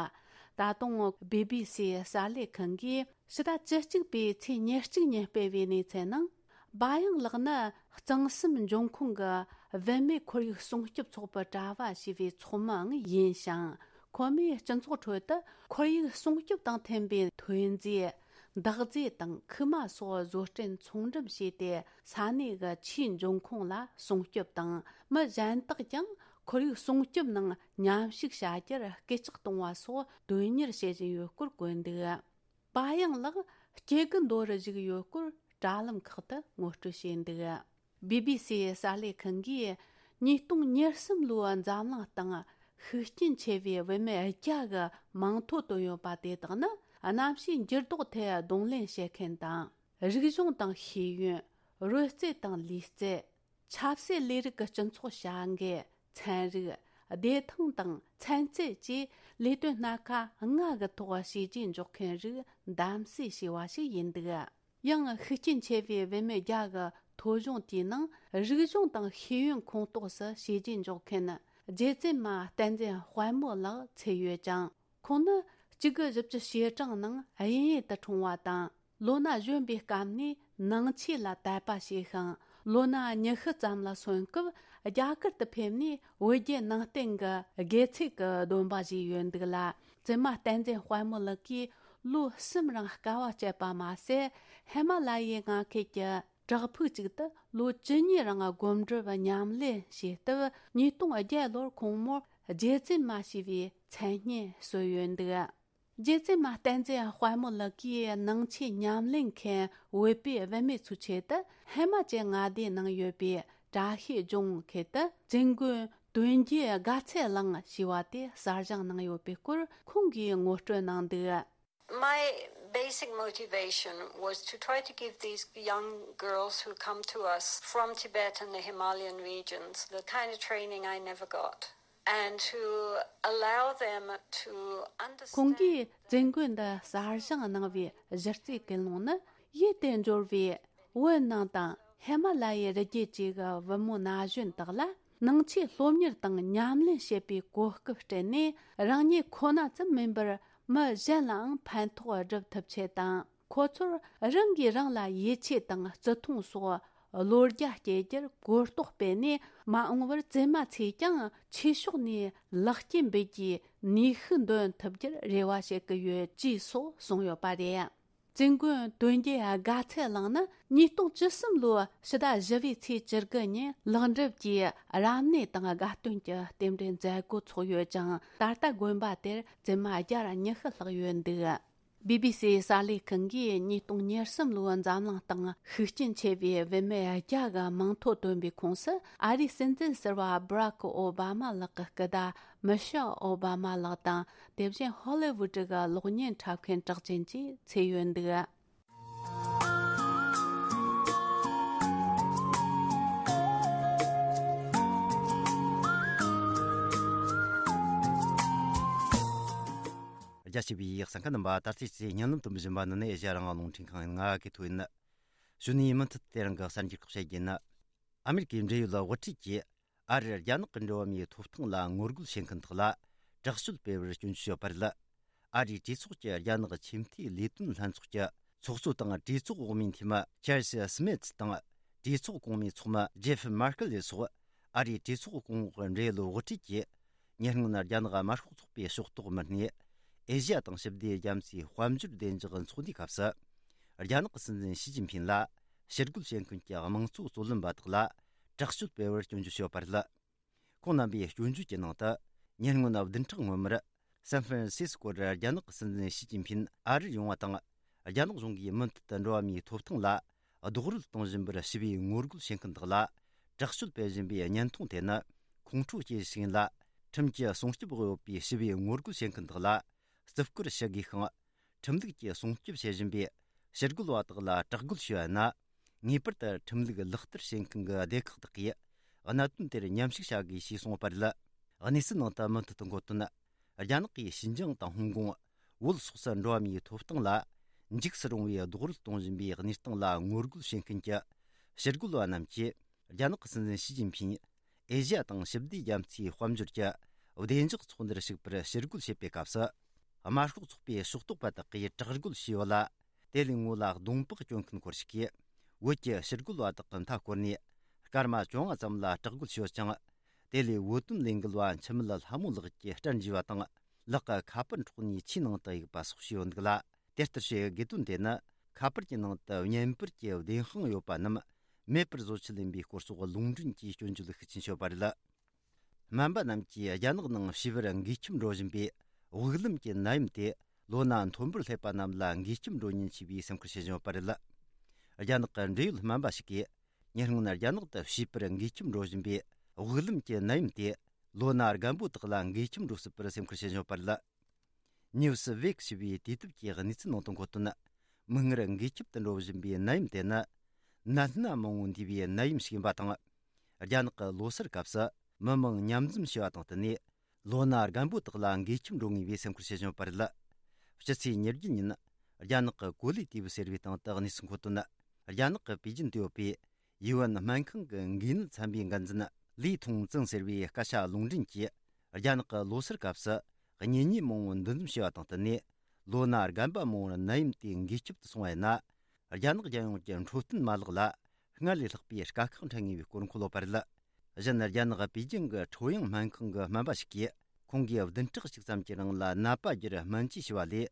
ད་དུང་བི་བི་སིའི་གསར་ལས་ཁང་གིས་ཕྱི་ཟླ་བཅུ་གཅིག་པའི་ཚེས་ཉེར་གཅིག་ཉིན་སྤེལ་བའི་གནས་ཚུལ་ནང་། བ་ཡང་ལགས་ནི་གཙང་གསུམ་འབྱུང་ཁུངས་ཀྱི་བུད་མེད་ཁོར་ཡུག་སྲུང་སྐྱོབ་ཚོགས་པའི་གྲྭ་བ་ཞེས་པའི་ཚོགས་མིའང་ཡིན་ཞིང་། ཁོ་མོས་སྤྱི་ཚོགས་ཁྲོད་དུ་ཁོར་ཡུག་སྲུང་སྐྱོབ་དང་མཐུན་པའི་ཐོན་རྫས། འདག་རྫས་དང་ཁུག་མ་སོགས་བཟོ་སྐྲུན་ཚོང་འགྲེམས་བྱས་ཏེ། ས་གནས་ཀྱི་ཆུའི་འབྱུང་ཁུངས་ལ་སྲུང་སྐྱོབ་དང་། མི་གཞན་དག་ཀྱང་ཁོར་ཡུག་སྲུང་སྐྱོབ་ནང་མཉམ་ཞུགས་བྱ་རྒྱུར་སྐུལ་ལྕག་གཏོང་བ་སོགས་དོན་གཉེར་བྱེད་བཞིན་ཡོད་སྐོར་བཀོད་འདུག། བ་ཡང་ལགས་སྐྱེ་རྒུ་མདོ་རུ་བཞུགས་ཡོད་སྐོར་དྲ་ལམ་ཁག་ཏུ་ངོ་སྤྲོད་བྱས་འདུག། བི་བི་སིའི་གསར་ལས་ཁང་གིས་ཉིས་སྟོང་ཉེར་གསུམ་ལོའི་འཛམ་གླིང་སྟེང་ཤུགས་རྐྱེན་ཆེ་བའི་བུད་མེད་བརྒྱ་གི་མིང་ཐོ་བཏོན་ཡོད་པ་དེ་དག་ནི། གནམ་གཤིས་འགྱུར་ལྡོག་ཐད་གདོང་ལེན་བྱེད་མཁན་དང་། རིག་གཞུང་དང་ཤེས་ཡོན། རོལ་རྩེད་དང་ལུས་རྩལ། ཆབ་སྲིད་ལས་རིགས་ཀྱི་སྤྱི་ཚོགས་བྱ་འགུལ། ཚན་རིག། བདེ་ཐང་དང་ཚན་རྩལ་བཅས་ལས་དོན་སྣ་ཁ་ལྔ་གི་ཐོག་བྱས་རྗེས་འཇོག་མཁན་རིགས་གདམ་གསེས་བྱས་པ་ཞིག་ཡིན་འདུག། ཡང་ཤུགས་རྐྱེན་ཆེ་བའི་བུད་མེད་བརྒྱ་གི་ཐོ་གཞུང་དེའི་ནང་རིག་གཞུང་དང་ཤེས་ཡོན་ཁོངས་གཏོགས་སུ་བྱས་རྗེས་འཇོག་མཁན་རྗེ་བཙུན་མ་བསྟན་འཛིན་དཔལ་མོ་ལགས་ཚུད་ཡོད་ཅིང་། ཁོང་ནི་གཅིག་དགུ་བཞི་བཅུ་ཞེ་གྲངས་ནང་དབྱིན་ཡུལ་དུ་འཁྲུངས་པ་དང་། ལོ་ན་གཞོན་པའི་སྐབས་ནས་ནང་ཆོས་ལ་དད་པ་བྱས་ཤིང་། ལོ་ན་ཉི་ཤུ་ཙམ་ལ་སོན་སྐབས་རྒྱ་གར་དུ་ཕེབས་ནས་བོད་བརྒྱུད་ནང་བསྟན་གྱི་དགེ་ཚུལ་གྱི་སྡོམ་པ་བཞེས་ཡོད་འདུག་ལ། བཙུན་མ་བསྟན་འཛིན་དཔལ་མོ་ལགས་ཀྱིས་ལོ་གསུམ་རིང་དཀའ་བ་སྤྱད་པ་མ་ཟད། ཧི་མ་ལ་ཡའི་མངའ་ཁུལ་གྱི་བྲག་ཕུག་ཅིག་ཏུ་ལོ་བཅུ་གཉིས་རིང་སྒོམ་སྒྲུབ་ཉམས་ལེན་བྱས་སྟབས། ཉིས་སྟོང་བརྒྱད་ལོར་ཁོང་མོར་རྗེ་བཙུན་མ་ཞེས་པའི་མཚན་སྙན་གསོལ་ཡོད་འདུག། རྗེ་བཙུན་མ་བསྟན་འཛིན་དཔལ་མོ་ལགས་ཀྱིས་ནང་ཆོས་ཉམས་ལེན་མཁན་བོད་པའི་བུད་མེད་ཚོའི་ཆེད་དུ། ཧི་མ་ཅལ་མངའ་སྡེའི་ནང་ཡོད་པའི་བཀྲ་ཤིས་ལྗོངས་ཁུལ་དུ་བཙུན་དགོན་དོན་རྒྱལ་དགའ་ཚལ་གླིང་ཞེས་པ་དེ་གསར་བཞེངས་གནང་ཡོད་པའི་སྐོར་ཁོང་གིས་ངོ་སྤྲོད་གནང་འདུག། My basic motivation was to try to give these young girls who come to us from Tibet and the Himalayan regions the kind of training I never got, and to allow them to understand. ཁོང་གིས་བཙུན་དགོན་འདི་གསར་བཞེངས་གནང་བའི་གཞི་རྩའི་ཀུན་སློང་ནི། ཡུལ་དེར་འབྱོར་བའི་བོད་ནང་དང་ཧི་མ་ལ་ཡའི་རི་རྒྱུད་བཅས་ཀྱི་བུ་མོ་ན་གཞོན་དག་ལ། ནང་ཆོས་སློབ་གཉེར་དང་ཉམས་ལེན་བྱེད་པའི་གོ་སྐབས་སྤྲད་ནས། རང་ཉིད་ཁོ་ན་ཙམ་མིན་པར་མི་གཞན་ལའང་ཕན་ཐོགས་སྒྲུབ་ཐུབ་ཆེད་དང་། ཁོ་ཚོར་རང་གིས་རང་ལ་ཡིད་ཆེས་དང་བརྩི་མཐོང་སོགས་བློ་རྒྱ་སྐྱེད་རྒྱུར་གོ་རྟོགས་སྤེལ་ནས། མ་འོངས་པར་བཙུན་མ་ཚོས་ཀྱང་ཆོས་ཕྱོགས་ནས་ལེགས་སྐྱེས་འབུལ་རྒྱུའི་ནུས་ཤུགས་འདོན་ཐུབ་རྒྱུར་རེ་བ་བྱེད་ཀྱི་ཡོད། ཅེས་སོགས་གསུངས་ཡོད་པ་རེད། བཙུན་དགོན་དོན་རྒྱལ་དགའ་ཚལ་གླིང་ནི་ཉིས་སྟོང་བཅུ་གསུམ་ལོའི་ཕྱི་ཟླ་བཞི་པའི་ཚེས་བཅུ་དགུ་ཉིན་ལེགས་འགྲུབ་ཀྱི་རབ་གནས་དང་དགའ་སྟོན་གྱི་རྟེན་འབྲེལ་མཛད་སྒོ་ཚོགས་ཡོད་ཅིང་། ད་ལྟ་དགོན་པ་དེར་བཙུན་མ་བརྒྱ་ཉི་ཤུ་ལྷག་ཡོད་འདུག། བི་བི་སིའི་གསར་ལས་ཁང་གིས་ཉིས་སྟོང་ཉེར་གསུམ་ལོའི་འཛམ་གླིང་སྟེང་ཤུགས་རྐྱེན་ཆེ་བའི་བུད་མེད་བརྒྱ་གི་མིང་ཐོ་བཏོན་པའི་ཁོངས་སུ། ཨ་རིའི་སྲིད་འཛིན་ཟུར་པ་སྦ་རག་ཨོ་བྷ་མ་ལགས་ཀྱི་སྐུ་ཟླ་མི་ཤེལ་ཨོ་བྷ་མ་ལགས་དང་། དེ་བཞིན་ཧོ་ལི་ཝུད་གི་གློག་བརྙན་འཁྲབ་མཁན་གྲགས་ཅན་བཅས་ཚུད་ཡོད་འདུག། རྒྱ་ཆེ་བའི་གསན་མཁན་རྣམ་པ། ད་ལྟའི་ཚེ་བརྙན་ལམ་དུ་འབྱོན་པ་འདི་ནི་ཨེ་ཤ་ཡ་རང་དབང་རླུང་འཕྲིན་ཁང་ཡིན། ང་གི་ཐོ་ཡིན། གཞོན་ནུའི་མུ་མཐུད་དེ་རིང་གི་གསར་འགྱུར་ཁག་བཤད་རྒྱུ་ཡིན། ཨ་མེ་རི་ཀའི་འབྲེལ་ཡོད་དབུ་ཁྲིད་ཀྱིས་ཨ་རིར་རྒྱ་ནག་གི་འགྲོ་བ་མིའི་ཐོབ་ཐང་ལ་ངོ་རྒོལ་བྱེད་མཁན་དག་ལ་དྲག་སྤྱོད་སྤེལ་བར་སྐྱོན་བརྗོད་བྱས་པ་རེད། ཨ་རིའི་གྲོས་ཚོགས་ཀྱི་རྒྱ་ནག་ཆེས་མཐོའི་ལས་དོན་ལྷན་ཚོགས་ཀྱི་ཚོགས་གཙོ་དང་གྲོས་ཚོགས་འོག་མའི་འཐུས་མི་ཆར་ལི་སི་མིད་དང་། གྲོས་ཚོགས་གོང་མའི་ཚོགས་མི་ཇེ་ཧྥི་མར་ཀལ་ལེ་སོགས་ཨ་རིའི་གྲོས་ཚོགས་གོང་འོག་འབྲེལ་ཡོད་དབུ་ཁྲིད་ཀྱིས། ཉེ་སྔོན་རྒྱ་ནག་དམར་ཤོག་ཚོགས་པའི་ཕྱོགས་གཏོགས་མི་སྣས་ཨེ་ཤི་ཡ་དང་ཞི་བདེ་རྒྱ་མཚོའི་དཔལ་འབྱོར་བདེ་འཇགས་ཚོགས་འདུའི་སྐབས་སུ། རྒྱ་ནག་གི་སྲིད་འཛིན་ཞི་ཅིན་ཕིང་ལ་ཕྱིར་རྒོལ་བྱེད་མཁན་གྱི་དམངས་གཙོ་རྩོད་ལེན་པ་དག་ལ་དྲག་སྤྱོད་སྤེལ་བར་སྐྱོན་བརྗོད་བྱས་པ་རེད། ཁོང་རྣམ་པའི་སྐྱོན་བརྗོད་ཀྱི་ནང་དུ། ཉེ་སྔོན་བདུན་ཕྲག་སྔོན་མར། སན་ཧྥ་རན་སིས་ཀོར་རྒྱ་ནག་གི་སྲིད་འཛིན་ཞི་ཅིན་ཕིན་ཨ་རིར་ཡོང་བ་དང་། རྒྱ་ནག་གཞུང་གིས་མུ་མཐུད་དུ་འགྲོ་བ་མིའི་ཐོབ་ཐང་ལ་རྡོག་རོལ་གཏོང་བཞིན་པར་ཞི་བའི་ངོ་རྒོལ་བྱེད་མཁན་དག་ལ་དྲག་སྤྱོད་སྤེལ་བཞིན་པའི་བརྙན་ཐུང་དེ་ནི་ཁོང་ཁྲོ་སྐྱེ་ཞིག་ཡིན་ལ། ཁྲིམས་ཀྱི་སྲུང་སྐྱོབ་འོག་ཡོད་པའི་ཞི་བའི་ངོ་རྒོལ་བྱེད་མཁན་དག་ལ་བརྩི་བཀུར་ཞུ་དགོས་ཤིང་། ཁྲིམས་ལུགས་ཀྱིས་སྲུང་སྐྱོབ་བྱེད་བཞིན་པའི་ཕྱིར་རྒོལ་བ་དག་ལ་དྲག་རྒོལ་ཞུ་བ་ཡིན་ན། ངེས་པར་དུ་ཁྲིམས་ལུགས་ལག་བསྟར་བྱེད་མཁན་གྱི་སྡེ་ཁག་དག་གིས་གནད་དོན་དེར་མཉམ་ཞུགས་བྱ་དགོས་ཞེས་གསུངས་པ་རེད། གནས་ཚུལ་ནང་དུ་མུ་མཐུད་དུ་འགོད་དོན། རྒྱ་ནག་གིས་ཞིན་ཅང་དང་ཧོང་ཀོང་། བོད་སོགས་སུ་འགྲོ་བ་མིའི་ཐོབ་ཐང་ལ་འཇིགས་སུ་རུང་བའི་རྡོག་རོལ་གཏོང་བཞིན་པའི་གནས་སྟངས་ལ་ངོ་རྒོལ་བྱེད་མཁན་གྱི་ཕྱིར་རྒོལ་བ་རྣམས་ཀྱིས། རྒྱ་ནག་གི་སྲིད་འཛིན་ཞི་ཅིན་ཕིང་ཨེ་ཤི་ཡ་དང་ཞི་བདེ་རྒྱ་མཚོའི་དཔལ་འབྱོར་གྱི་བདེ་འཇགས་ཚོགས་འདུར་ཞུགས་པར་ཕྱིར་རྒོལ་བྱེད་པའི་སྐབས་སུ། དམར་ཤོག་ཚོགས་པའི་ཕྱོགས་གཏོགས་པ་དག་གིས་དྲག་རྒོལ་བྱས་ཡོད་ལ། དེ་ལས་ངོ་ལ་གདོང་པགས་གྱོན་མཁན་སྐོར་ཞིག་གིས། བོད་ཀྱི་ཕྱིར་རྒོལ་བ་དག་གི་མཐའ་བསྐོར་ནས། སྐར་མ་བཅོ་ལྔ་ཙམ་ལ་དྲག་རྒོལ་བྱས་ཡོད་ཅིང་། དེ་ལས་བོད་དོན་ལས་འགུལ་བ་འཆི་མེད་ལྷ་མོ་ལགས་ཀྱི་སྐྲ་འཇུས་པ་དང་། ལག་གི་ཁ་པར་འཕྲོག་ནས་ཆུའི་ནང་དུ་གཡུགས་པ་སོགས་བྱས་ཡོད་འདུག་ལ། དེ་ལྟར་བྱེད་དགོས་དོན་དེ་ནི། ཁ་པར་གྱི་ནང་དུ་བརྙན་པར་གྱི་བདེན་དཔང་ཡོད་པ་རྣམས་མེད་པར་བཟོ་ཆེད་ཡིན་པའི་སྐོར་སོགས་ལུང་འདྲེན་གྱིས་སྐྱོན་བརྗོད་ཤུགས་ཆེན་བྱས་པ་རེད། སྨན་པ་རྣམས་ཀྱིས་རྒྱ་ནག་ནང་བྱིས་པར་འགོས་ཁྱིམ་འགྲོ་བཞིན་པའི་དབུགས་ལམ་གྱི་ནད་ཡམས་དེ་ལོ་ན་མཐོན་པོར་སླེབས་པ་རྣམས་ལ་འགོས་ཁྱིམ་འགྲོ་ཉེན་ཆེ་བའི་སེམས་ཁུར་བྱེད་བཞིན་ཡོད་པ་རེད། རྒྱ་ནག་གི་འབྲེལ་ཡོད་སྨན་པ་ཞིག་གིས། ཉེ་སྔོན་རྒྱ་ནག་ཏུ་བྱིས་པར་འགོས་ཁྱིམ་འགྲོ་བཞིན་པའི་དབུགས་ལམ་གྱི་ནད་ཡམས་དེ་ལོ་ན་རྒན་པོ་དག་ལ་འགོས་ཁྱིམ་འགྲོ་སྲིད་པར་སེམས་ཁུར་བྱེད་བཞིན་ཡོད་པ་རེད། ནིའུ་སི་ཝེག་ཞེས་པའི་དུས་དེབ་ཀྱི་གནས་ཚུལ་ནང་དུ་འཁོད་དོན། མིག་སྔར་འགོས་ཁྱིམ་དུ་འགྲོ་བཞིན་པའི་ནད་ཡམས་དེ་ནི། ནད་སྣ་མང་བོ་འདུས་པའི་ནད་ཡམས་ཤིག་ཡིན་པ་དང་། རྒྱ་ནག་གི་ལོ་སར་སྐབས་སུ་མི་མང་མཉམ་འཛོམས་བྱས་པ་དང་བསྟུན་ནས། ལོ་ན་རྒན་པོ་དག་ལ་འགོས་ཁྱིམ་འགྲོ་ངེས་པའི་སེམས་ཁུར་བྱེད་བཞིན་ཡོད་པ་རེད། སྤྱི་ཚེས་ཉེར་བརྒྱད་ཉིན། རྒྱ་ནག་གི་གོ་ལའི་ཏི་བུ་ཟེར་བའི་སྟེང་དུ་གནས་ཚུལ་འཁོད་དོན། རྒྱ་ནག་གི་པེ་ཅིན་དུ་ཡོད་པའི་ཡུའུ་ཨེན་སྨན་ཁང་གི་འགོས་ནད་ཚན་པའི་འགན་འཛིན་ལི་ཐུང་ཙིང་ཟེར་བའི་སྐད་ཆ་ལུང་འདྲེན་གྱིས། རྒྱ་ནག་གི་ལོ་སར་སྐབས་སུ་གཉེན་ཉེ་མང་བོ་འདུ་འཛོམས་བྱས་པ་དང་བསྟུན་ནས། ལོ་ན་རྒན་པ་མང་བོར་ནད་ཡམས་དེ་འགོས་ཁྱབ་ཏུ་སོང་བ་ཡིན་ན། རྒྱ་ནག་རྒྱལ་ཡོངས་ཀྱི་འཕྲོད་བསྟེན་མ་ལག་ལ་སྔར་ལས་ལྷག་པའི་དཀའ་ཁག་འཕྲད་ངེས་པའི་སྐོར་འཁོད་ཡོད་པ་རེད། གཞན། རྒྱ་ནག་པེ་ཅིང་གི་ཁྲོ་ཡང་སྨན་ཁང་གི་སྨན་པ་ཞིག་གིས། ཁོང་གིས་བདུན་ཕྲག་གཅིག་ཙམ་གྱི་རིང་ལ་ནད་པ་བརྒྱར་སྨན་བཅོས་བྱས་པ་ལས།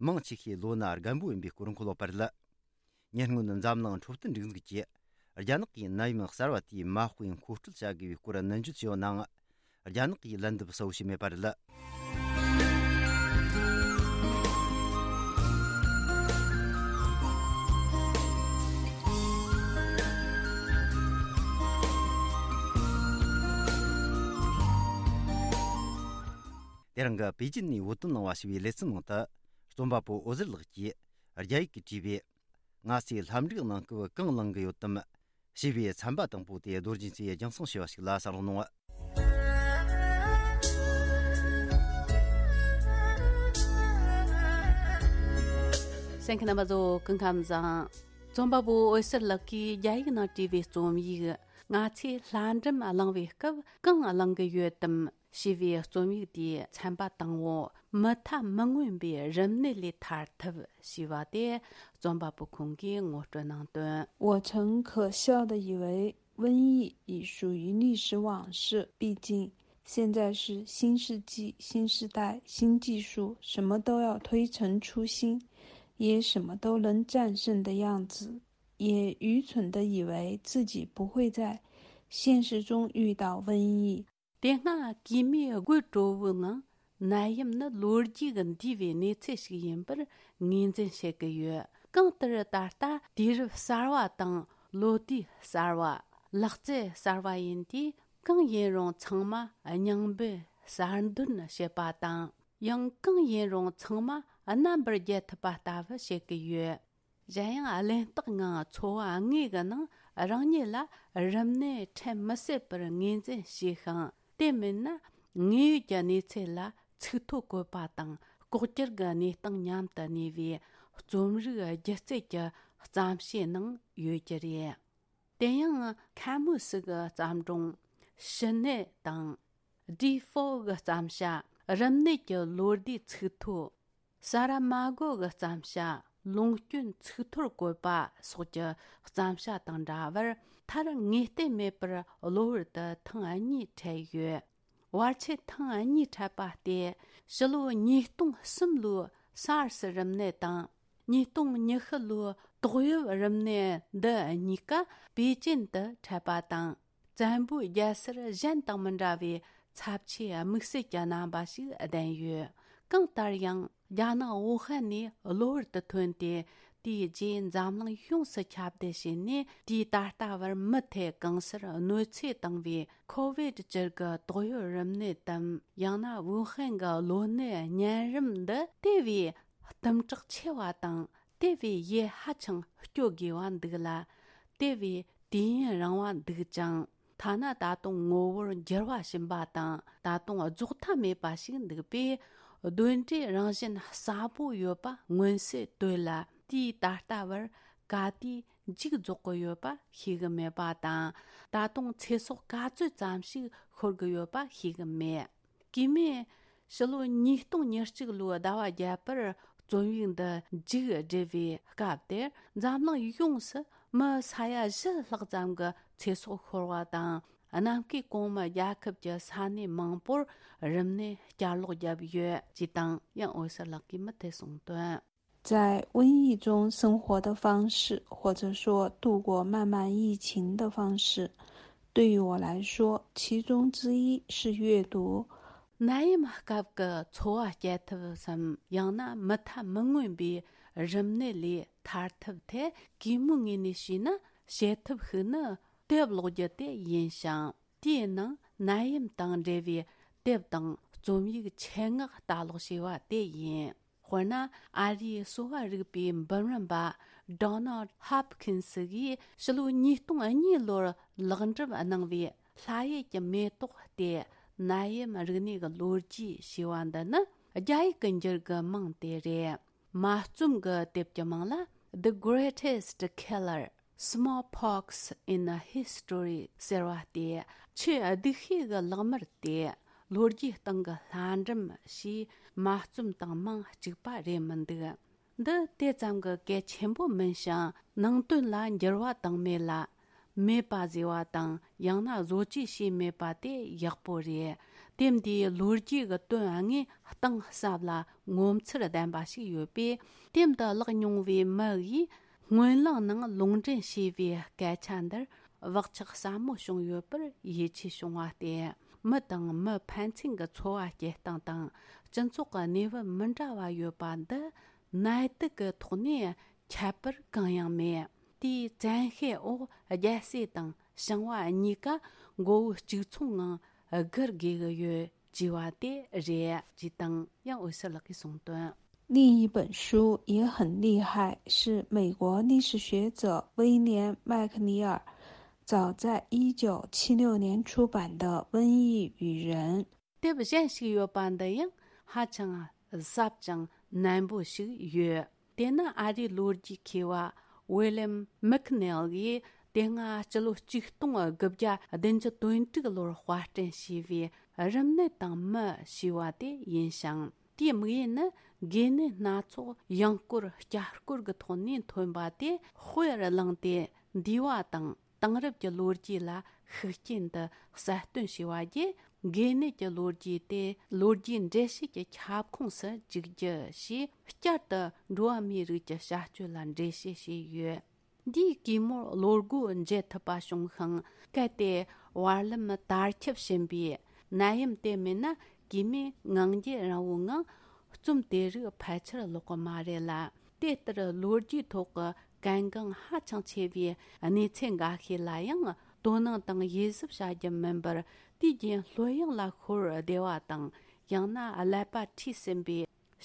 མང་ཆེ་ཤོས་ལོ་ན་རྒན་པོ་ཡིན་པའི་སྐོར་འཁོད་ཡོད་པ་རེད། ཉེ་སྔོན་འཛམ་གླིང་འཕྲོད་བསྟེན་སྒྲིག་འཛུགས་ཀྱིས། རྒྱ་ནག་གིས་ནད་ཡམས་གསར་བ་དེའི་མ་དཔེ་མཁོ་སྤྲོད་བྱ་དགོས་པའི་སྐོར་ནན་བརྗོད་བྱས་ཡོད་ནའང་། རྒྱ་ནག་གིས་ལན་འདེབས་གསལ་བོ་ཞིག་མེད་པ་རེད། དེ་རིང་གི་པེ་ཅིན་ནས་བོད་དོན་གླེང་བ་ཞེས་པའི་ལེ་ཚན་ནང་དུ། རྩོམ་པ་པོ་འོད་ཟེར་ལགས་ཀྱིས་རྒྱ་ཡིག་གིས་བྲིས་པའི། ང་ཚོའི་ལྷ་འབྲུག་ནང་སྐབས་གང་བླངས་ཀྱི་ཡོད་དམ། ཞེས་པའི་ཚན་པ་དང་པོ་དེ་རྡོ་རྗེ་མཚོས་རྒྱང་སྲིང་ཞུས་པ་ཞིག་ལ་གསན་རོགས་གནང་། གསན་མཁན་རྣམ་པ་ཚོ་སྐུ་ཁམས་བཟང་། རྩོམ་པ་པོ་འོད་ཟེར་ལགས་ཀྱིས་རྒྱ་ཡིག་ནང་བྲིས་པའི་རྩོམ་ཡིག་ང་ཚོས་ལྷ་འབྲུག་བླངས་པའི་སྐབས་གང་བླངས་ཀྱི་ཡོད་དམ། ཞེས་པའི་རྩོམ་ཡིག་དེའི་ཚན་པ་དང་པོ། མུ་མཐའ་མི་མངོན་པའི་རིམས་ནད་ལས་ཐར་ཐབས་ཞེས་པ་དེ་རྩོམ་པ་པོ་ཁོང་གིས་ངོ་སྤྲོད་གནང་དོན། 我曾可笑地以为瘟疫已属于历史往事，毕竟现在是新世纪、新时代、新技术，什么都要推陈出新，也什么都能战胜的样子，也愚蠢地以为自己不会在现实中遇到瘟疫。 དེ་སྔ་གོས་མོའི་དགོད་བྲོ་བོའི་ངང་ནད་ཡམས་ནི་ལོ་རྒྱུས་ཀྱི་འདས་པའི་གནས་ཚུལ་ཞིག་ཡིན་པར་ངོས་འཛིན་བྱེད་ཀྱི་ཡོད། གང་ལྟར་ད་ལྟ་དུས་རབས་གསར་བ་དང་ལོ་དུས་གསར་བ། ལག་རྩལ་གསར་བ་ཡིན་དུས་གང་ཡིན་རུང་ཚང་མ་རྙིང་པའི་གསར་འདོན་བྱེད་པ་དང་། ཡང་གང་ཡིན་རུང་ཚང་མ་རྣམ་པར་རྒྱལ་ཐུབ་པ་ལྟ་བུ་བྱེད་ཀྱི་ཡོད། གཞན་ཡང་གླེན་རྟགས་ངང་འཚོ་བ་དངོས་ཀྱི་ནང་རང་ཉིད་ལ་རིམས་ནད་འཕྲད་མི་སྲིད་པར་ངོས་འཛིན་བྱས་ཤིང་། དེ་མིན་ན་དངོས་ཡོད་ཀྱི་གནས་ཚུལ་ལ་ཚིག་ཐོ་བཀོད་པ་དང་ལྐོག་གྱུར་གྱི་གནས་སྟངས་མཉམ་དུ་གནས་པའི་རྩོམ་རིག་སྒྱུ་རྩལ་གྱི་ བརྩམས་བྱའི་ནང་ཡོད་རྒྱུ་རེད། དེ་ཡང་ཁ་མུ་སི་གི་བརྩམས་སྒྲུང་ཕྱི་ནད་དང་། ཌི་ཧྥོ་གི་བརྩམས་བྱ་རིམས་ནད་ཀྱི་ལོ་ཟླའི་ཚིག་ཐོ། ས་ར་མ་གོ་གི་བརྩམས་བྱ་ལུང་སྐྱོན་ཚིག་ཐོར་བཀོད་པ་སོགས་ཀྱི་བརྩམས་བྱ་དང་འདྲ་བར། མཐར་ངེས་གཏན་མེད་པར་གློ་བུར་དུ་ཐེངས་གཉིས་འཕྲད་ཡོད། བར་ཆད་ཐེངས་གཉིས་འཕྲད་པ་སྟེ། ཕྱི་ལོ་ཉིས་སྟོང་གསུམ་ལོའི་སཱར་སི་རིམས་ནད་དང་། ཉིས་སྟོང་ཉི་ཤུ་ལོའི་ཏོག་དབྱིབས་རིམས་ནད་འདི་གཉིས་ཀ་པེ་ཅིན་དུ་འཕྲད་པ་དང་། བཙན་པོའི་རྒྱལ་སར་གཞན་དང་མི་འདྲ་བའི་ཚབས་ཆེའི་དམིགས་བསལ་གྱི་རྣམ་པ་ཞིག་ལྡན་ཡོད། གང་ལྟར་ཡང་རྒྱ་ནག་ཝུ་ཧན་ནས་གློ་བུར་དུ་ཐོན་ཏེ། དེའི་རྗེས་འཛམ་གླིང་ཡོངས་སུ་ཁྱབ་གདལ་བྱས་ནས། དུས་ད་ལྟ་བར་མུ་མཐུད་གང་སར་གནོད་འཚེ་བཏང་བའི་ཁོ་ཝིད་བཅུ་གི་ཏོག་དབྱིབས་རིམས་ནད་དམ། ཡང་ན་ཝུ་ཧན་གྱི་གློ་ནད་གཉན་རིམས་འདི་དེ་བས་གཏུམ་དྲག་ཆེ་བ་དང་། དེ་བས་ཡུན་ཧ་ཅང་སྐྱོ་དགོས་པ་འདུག་ལ། དེ་བས་དུས་ཡུན་རིང་བ་འདུག་ཅིང་། ཐ་ན་ད་དུང་ངོ་བོར་འགྱུར་བ་ཕྱིན་པ་དང་། ད་དུང་རྫོགས་མཐའ་མེད་པ་ཞིག་འདུག་པས། གདོན་འདྲེའི་རང་བཞིན་གསལ་པོ་ཡོད་པ་མངོན་གསལ་དོད་ལ། དུས་ད་ལྟ་བར་ག་དུས་མཇུག་རྫོགས་ཀྱི་ཡོད་པ་ཤེས་གི་མེད་པ་དང་། ད་དུང་ཚེ་སྲོག་ག་ཚོད་ཙམ་ཞིག་ཤོར་གི་ཡོད་པ་ཤེས་གི་མེད། གུས་མོས་ཕྱི་ལོ་ཉིས་སྟོང་ཉེར་གཅིག་ལོའི་ཟླ་བ་བརྒྱད་པར་རྩོམ་ཡིག་འདི་མཇུག་བསྒྲིལ་བའི་སྐབས་དེར། འཛམ་གླིང་ཡོངས་སུ་མི་ས་ཡ་བཞི་ལྷག་ཙམ་གྱི་ཚེ་སྲོག་ཤོར་བ་དང་། གནམ་བསྐོས་གོང་མའི་རྒྱལ་ཁབ་ཀྱི་ས་གནས་མང་པོར་རིམས་ནད་བསྐྱར་ལོག་བརྒྱབ་ཡོད་ཅེས་དང་། ཡང་འོད་ཟེར་ལགས་ཀྱིས་མུ་མཐུད་གསུངས་དོན། 在瘟疫中生活的方式，或者说度过漫漫疫情的方式，对于我来说，其中之一是阅读。 ནད་ཡམས་སྐབས་ཀྱི་འཚོ་བ་སྐྱེལ་ཐབས་སམ། ཡང་ན་མུ་མཐའ་མི་མངོན་པའི་རིམས་ནད་ལས་ཐར་ཐབས་ཐད། གུས་མོའི་ངོས་ནས་བྱས་ན། བྱེད་ཐབས་ཤིག་ནི་དེབ་ཀློག་རྒྱུ་དེ་ཡིན་ཞིང་། དེའི་ནང་ནད་ཡམས་དང་འབྲེལ་བའི་དེབ་དང་རྩོམ་ཡིག་ཆེད་མངགས་ལྟ་ཀློག་བྱས་པ་དེ་ཡིན། དཔེར་ན། ཨ་རིའི་གསོ་བ་རིག་པའི་འབུམ་རམས་པ་Donald Hopkins གིས་ཕྱི་ལོ་ཉིས་སྟོང་གཉིས་ལོར་ལེགས་འགྲུབ་གནང་བའི་ལྷ་ཡུལ་གྱི་མེ་ཏོག་སྟེ། ནད་ཡམས་རིག་གནས་ཀྱི་ལོ་རྒྱུས་ཞེས་པ་འདི་ནི་རྒྱ་ཡིག་གི་འགྱུར་གྱི་མིང་དེ་རེད། མ་རྩོམ་གྱི་དེབ་ཀྱི་མིང་ལ། The Greatest Killer: Smallpox in a History ཟེར་བ་སྟེ། ཆེས་སྡུག་ཤོས་ཀྱི་ལག་དམར་སྟེ། ལོ་རྒྱུས་སྟེང་གི་ལྷ་འབྲུམ་ཞེས་མ་རྩོམ་དང་མིང་གཅིག་པ་རེད་མི་འདུག། འདི་དེ་ཙམ་གྱི་གལ་ཆེན་པོ་མིན་ཞིང་། ནང་དོན་ལ་འགྱུར་བ་བཏང་མེད་ལ། མེད་པ་བཟོས་པ་དང་། ཡང་ན་བཟོ་བཅོས་བྱས་མེད་པ་དེ་ཡག་པོ་རེད། དེབ་འདིའི་ལོ་རྒྱུས་ཀྱི་དོན་དངོས་གཏིང་ཟབ་ལ་ངོ་མཚར་ལྡན་པ་ཞིག་ཡོད་པས། དེབ་འདི་བཀླགས་མྱོང་བའི་མི་ཡིས་སྨོན་ལམ་ནང་ལུང་འདྲེན་བྱས་པའི་སྐད་ཆ་འདིར་བག་ཆགས་ཟབ་མོ་བྱུང་ཡོད་པར་ཡིད་ཆེས་བྱུང་བ་སྟེ། མི་དང་མི་ཕན་ཚུན་གྱི་འཚོ་བ་སྐྱེལ་སྟངས་དང་། སྤྱི་ཚོགས་ཀྱི་གནས་བབ་མི་འདྲ་བ་ཡོད་པ་འདི་ནད་དུག་གི་ཐོག་ནས་ཁྱད་པར་གང་ཡང་མེད། དེའི་བཙན་ཤེད་འོག་རྒྱལ་སྲས་དང་ཞིང་བ་གཉིས་ཀ་མགོ་བོ་གཅིག་མཚུངས་ངང་སྒུར་དགོས་ཀྱི་ཡོད་ཅེས་པ་དེ་རེད་ཅེས་དང་། ཡང་འོད་ཟེར་ལགས་ཀྱིས་གསུངས་དོན། 另一本书也很厉害，是美国历史学者威廉·麦克尼尔早在一九七六年出版的《瘟疫与人》。 དེབ་གཞན་ཞིག་ཡོད་པ་འདི་ཡང་ཧ་ཅང་ཟབ་ཅིང་ནན་པོ་ཞིག་ཡོད། དེ་ནི་ཨ་རིའི་ལོ་རྒྱུས་མཁས་པ་ཝི་ལེམ་མེག་ནེལ་གྱིས་དེ་སྔ་སྤྱི་ལོ་ཆིག་སྟོང་དགུ་བརྒྱ་བདུན་ཅུ་དོན་དྲུག་ལོར་དཔར་སྐྲུན་བྱས་པའི་རིམས་ནད་དང་མི་ཞེས་པ་དེ་ཡིན་ཞིང་། དེའི་དམིགས་ཡུལ་ནི་འགོས་ནད་སྣ་ཚོགས་ཡང་སྐོར་བསྐྱར་སྐོར་གྱི་ཐོག་ནས་ཐོན་པ་དེ་དཔེར་བླངས་ཏེ། འདས་པ་དང་དེང་རབས་ཀྱི་ལོ་རྒྱུས་ལ་ཤུགས་རྐྱེན་དུ་གསལ་སྟོན་བྱས་པ་བརྒྱུད། འགོས་ནད་ཀྱི་ལོ་རྒྱུས་དེ་ལོ་རྒྱུས་འགྲེལ་བཤད་ཀྱི་ཁྱབ་ཁོངས་སུ་འཇུག་རྒྱུ་ཞེས། བསྐྱར་དུ་འགྲོ་བ་མིའི་རིགས་ཀྱི་བྱ་སྤྱོད་ལ་འགྲེལ་བཤད་བྱས་ཡོད། འདིས་གུས་མོར་བློ་སྒོ་འབྱེད་ཐུབ་པ་བྱུང་ཞིང་། གལ་ཏེ་བར་ལམ་དར་ཁྱབ་ཕྱིན་པའི་ནད་ཡམས་དེ་མེད་ན། གུས་མོས་ངང་རྒྱུད་རིང་བོའི་ངང་རྩོམ་དེ་རིགས་ཕལ་ཆེར་ཀློག་གི་མ་རེད་ལ། དེ་ལྟར་ལོ་རྒྱུས་ཐོག་གི་གལ་འགངས་ཧ་ཅང་ཆེ་བའི་གནས་ཚུལ་འགའ་ཤས་ལ་ཡང་དོ་སྣང་དང་དབྱེ་ཞིབ་བྱ་རྒྱུ་མིན་པར། དུས་རྒྱུན་ལྷོད་ཡངས་ལ་ཤོར་བདེ་བ་དང་། ཡང་ན་ཀླད་པ་འཁྲུད་ཟིན་པའི་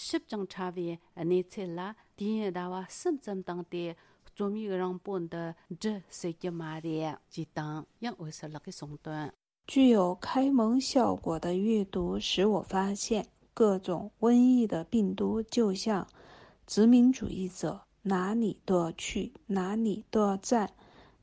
ཞིབ་ཅིང་ཕྲ་བའི་གནས་ཚུལ་ལ། དུས་ཡུན་ཟླ་བ་གསུམ་ཙམ་བཏང་སྟེ་རྩོམ་ཡིག་རིང་པོ་འདི་འབྲི་སྲིད་ཀྱི་མ་རེད་ཅེས་དང་། ཡང་འོད་ཟེར་ལགས་ཀྱིས་གསུངས་དོན། 具有开蒙效果的阅读使我发现，各种瘟疫的病毒就像殖民主义者哪里都去，哪里都在，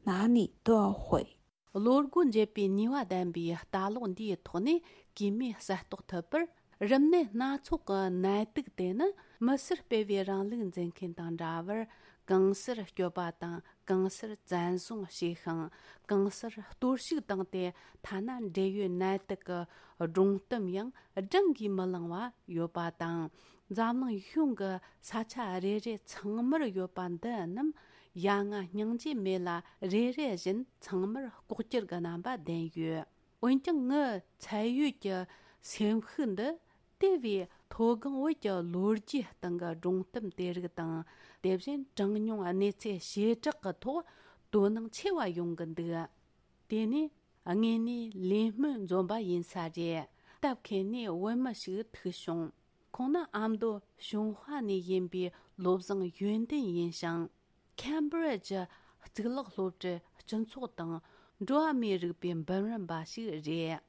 哪里都会。 བློ་སྒོ་འབྱེད་པའི་ནུས་པ་ལྡན་པའི་ལྟ་ཀློག་འདིའི་ཐོག་ནས་གུས་མོས་གསལ་རྟོགས་ཐུབ་པར། རིམས་ནད་སྣ་ཚོགས་ཀྱི་ནད་དུག་དེ་ནི་མི་སེར་སྤེལ་བའི་རིང་ལུགས་འཛིན་མཁན་དང་འདྲ་བར། གང་སར་སྐྱོབ་པ་དང་གང་སར་བཙན་བཟུང་བྱས་ཤིང་། གང་སར་གཏོར་བཤིག་བཏང་སྟེ། ཐ་ན་འབྲེལ་ཡོད་ནད་དུག་གི་སྒྲོམ་གཏམ་ཡང་བགྲང་གིས་མི་ལང་བ་ཡོད་པ་དང་། འཛམ་གླིང་གཞུང་གི་ས་ཆ་རེ་རེ་ཚང་མར་ཡོད་པ་འདི་རྣམས། ཡ་ང་སྙིང་རྗེ་མེད་ལ། རེ་རེ་བཞིན་ཚང་མར་ལྐོག་གྱུར་གྱི་རྣམ་པ་ལྡན་ཡོད། འོན་ཀྱང་ངའི་ཚད་ཡོད་ཀྱི་སེམས་ཤུགས་འདི། དེ་བས་མཐོ་སྒང་བོད་ཀྱི་ལོ་རྒྱུས་སྟེང་གི་སྒྲུང་གཏམ་དེ་རིགས་དང་། དེ་བཞིན་གྲངས་ཉུང་གནས་ཚུལ་བྱེ་བྲག་གི་ཐོག་དོ་སྣང་ཆེ་བ་ཡོང་གི་འདུག། དེ་ནས་དངོས་གནས་ལས་སྨོན་འཛོམས་པ་ཡིན་ས་རེད། སྟབས་མཁས་ནས་བོད་མི་ཞིག་ཐུག་བྱུང་། ཁོང་ནི་ཨ་མདོ་ཞུན་ཧྭ་ནས་ཡིན་པའི་བློ་བཟང་ཡོན་ཏན་ཡིན་ཞིང་། ཁེམ་བྷི་རི་ཇི་གཙུག་ལག་སློབ་གྲྭའི་སྤྱི་ཚོགས་དང་འགྲོ་བ་མིའི་རིག་པའི་འབུམ་རམས་པ་ཞིག་རེད།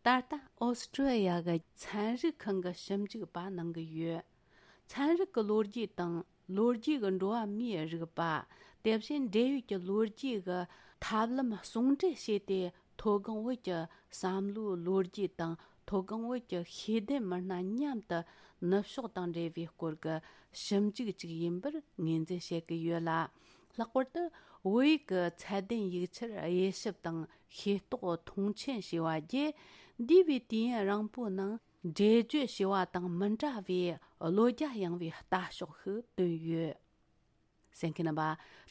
ད་ལྟ་ཨོ་སི་ཀྲི་ཡ་གི་ཚན་རིག་ཁང་གི་ཞིབ་འཇུག་པ་གནང་གི་ཡོད། ཚན་རིག་གི་ལོ་རྒྱུས་དང་ལོ་རྒྱུས་ཀྱི་འགྲོ་བ་མིའི་རིག་པ། དེ་བཞིན་འབྲེལ་ཡོད་ཀྱི་ལོ་རྒྱུས་ཀྱི་ཐབས་ལམ་ཟུང་འབྲེལ་བྱས་ཏེ། མཐོ་སྒང་བོད་ཀྱི་བསམ་བློའི་ལོ་རྒྱུས་དང་། མཐོ་སྒང་བོད་ཀྱི་ཤེས་ལྡན་མི་སྣ་མཉམ་དུ་ནུབ་ཕྱོགས་དང་འབྲེལ་བའི་སྐོར་གྱི་ཞིབ་འཇུག་ཅིག་ཡིན་པར་ངོས་འཛིན་བྱེད་ཀྱི་ཡོད་ལ། ལྷག་པར་དུ་བོད་ཡིག་གི་ཚད་ལྡན་ཡིག་ཆར་དབྱེ་ཞིབ་དང་ཤེས་རྟོགས་མཐོང་ཆེན་བྱས་པ་བརྒྱུད། འདས་པའི་དུས་ཡུན་རིང་པོའི་ནང་འགྲེལ་བརྗོད་བྱས་པ་དང་མི་འདྲ་བའི་བློ་རྒྱ་ཡངས་པའི་ལྟ་ཕྱོགས་ཤིག་བཏོན་ཡོད། གསན་མཁན་རྣམ་པ།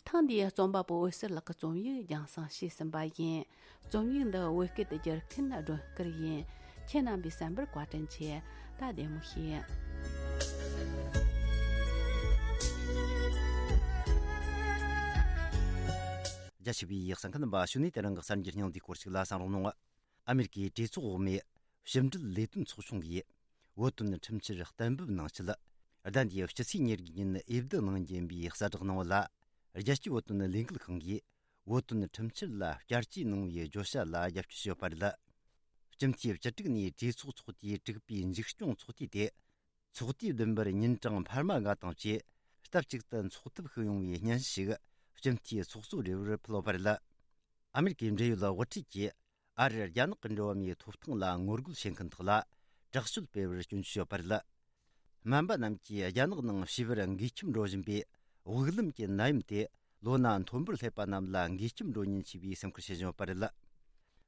ཐེངས་འདིའི་རྩོམ་པ་པོ་འོད་ཟེར་ལགས་ཀྱི་རྩོམ་ཡིག་རྒྱང་སྲིང་བྱས་ཟིན་པ་ཡིན། རྩོམ་ཡིག་འདི་བོད་སྐད་དུ་བསྒྱུར་མཁན་སྒྲོན་དཀར་ཡིན། ཁྱེད་རྣམ་པས་གསན་པར་བཀའ་དྲིན་ཆེ། ད་བདེ་མོ་བྱོས། རྒྱ་ཆེ་བའི་གསན་མཁན་རྣམ་པ། གཞུག་ནས་དེ་རིང་གི་གསར་འགྱུར་སྙིང་བསྡུས་སྐོར་ཞིག་ལ་གསན་རོགས་གནང་། ཨ་མེ་རི་ཀའི་གྲོས་ཚོགས་འོག་མའི་ཕྱི་འབྲེལ་ལས་དོན་ཚོགས་ཆུང་གིས་བོད་དོན་ཁྲིམས་འཆར་གཏན་འབེབས་གནང་ཆེད། ཟླ་འདིའི་སྤྱི་ཚེས་ཉེར་དགུ་ཉིན་འོས་བསྡུ་གནང་རྒྱུ་ཡིན་པའི་གསལ་བསྒྲགས་གནང་བ་ལ། རྒྱལ་སྤྱིའི་བོད་དོན་ལས་འགུལ་ཁང་གིས་བོད་དོན་ཁྲིམས་འཆར་ལ་བསྐྱར་བཅོས་གནང་བའི་བརྗོད་བྱ་ལ་རྒྱབ་སྐྱོར་བྱས་ཡོད་པ་རེད། སྤྱི་འཐུས་བཅུ་དྲུག་ནས་གྲོས་ཚོགས་ཚོགས་དུས་དྲུག་པའི་མཇུག་སྐྱོང་ཚོགས་དུས་དེ། ཚོགས་དུས་བདུན་པར་ཉིན་གྲངས་འཕར་མ་ལྔ་དང་བཅས། སྟབས་གཅིག་ཏུ་འཚོགས་ཐབས་ཤིག་ཡོང་བའི་སྙན་ཞུ་ཞིག་སྤྱི་འཐུས་ཚོགས་གཙོ་རེ་བར་ཕུལ་བ་རེད། ཨ་མེ་རི་ཀའི་འབྲེལ་ཡོད་དབུ་ཁྲིད་ཀྱིས་ཨ་རིར་རྒྱ་ནག་གི་འགྲོ་བ་མིའི་ཐོབ་ཐང་ལ་ངོ་རྒོལ་བྱེད་མཁན་དག་ལ་དྲག་སྤྱོད་སྤེལ་བར་སྐྱོན་བརྗོད་བྱས་ཡོད་པ་རེད། སྨན་པ་རྣམས་ཀྱིས་རྒྱ་ནག་ནང་བྱིས་པར་འགོས་ཁྱིམ་འགྲོ་བཞིན་པའི་དབུགས་ལམ་གྱི་ནད་ཡམས་དེ་ལོ་ན་མཐོན་པོར་སླེབས་པ་རྣམས་ལ་འགོས་ཁྱིམ་འགྲོ་ཉེན་ཆེ་བའི་སེམས་ཁུར་བྱེད་བཞིན་ཡོད་པ་རེད།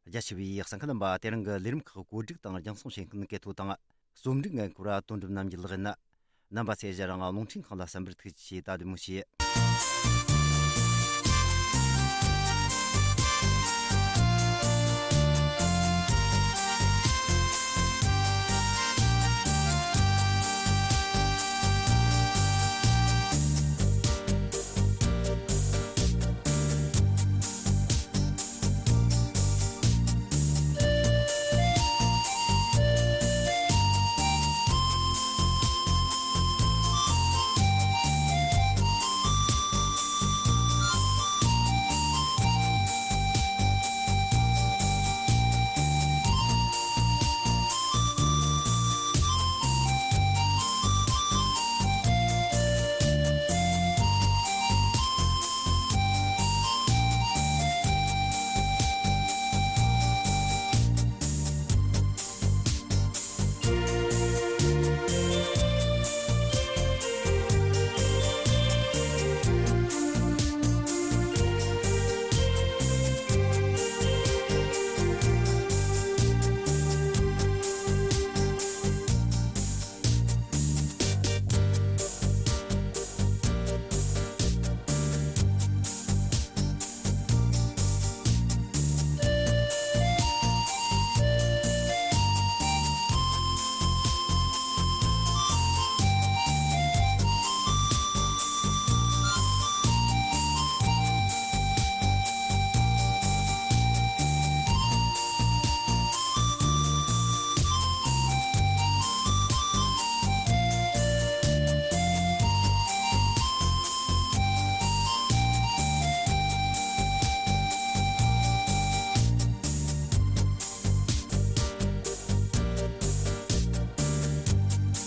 རྒྱ་ཆེ་བའི་གསན་མཁན་རྣམ་པ། དེ་རིང་གི་ལས་རིམ་ཁག་གོ་སྒྲིག་དང་རྒྱང་སྲིང་བྱེད་མཁན་གལ་ཐོ་དང་། རྩོམ་སྒྲིག་འགན་འཁུར་བ་དོན་གྲུབ་རྣམ་རྒྱལ་ལགས་ཡིན། རྣམ་པ་ཚོས་གཞན་རང་རླུང་འཕྲིན་ཁང་ལ་གསན་པར་ཐུགས་རྗེ་ཆེ། ད་བདེ་མོ་བྱོས།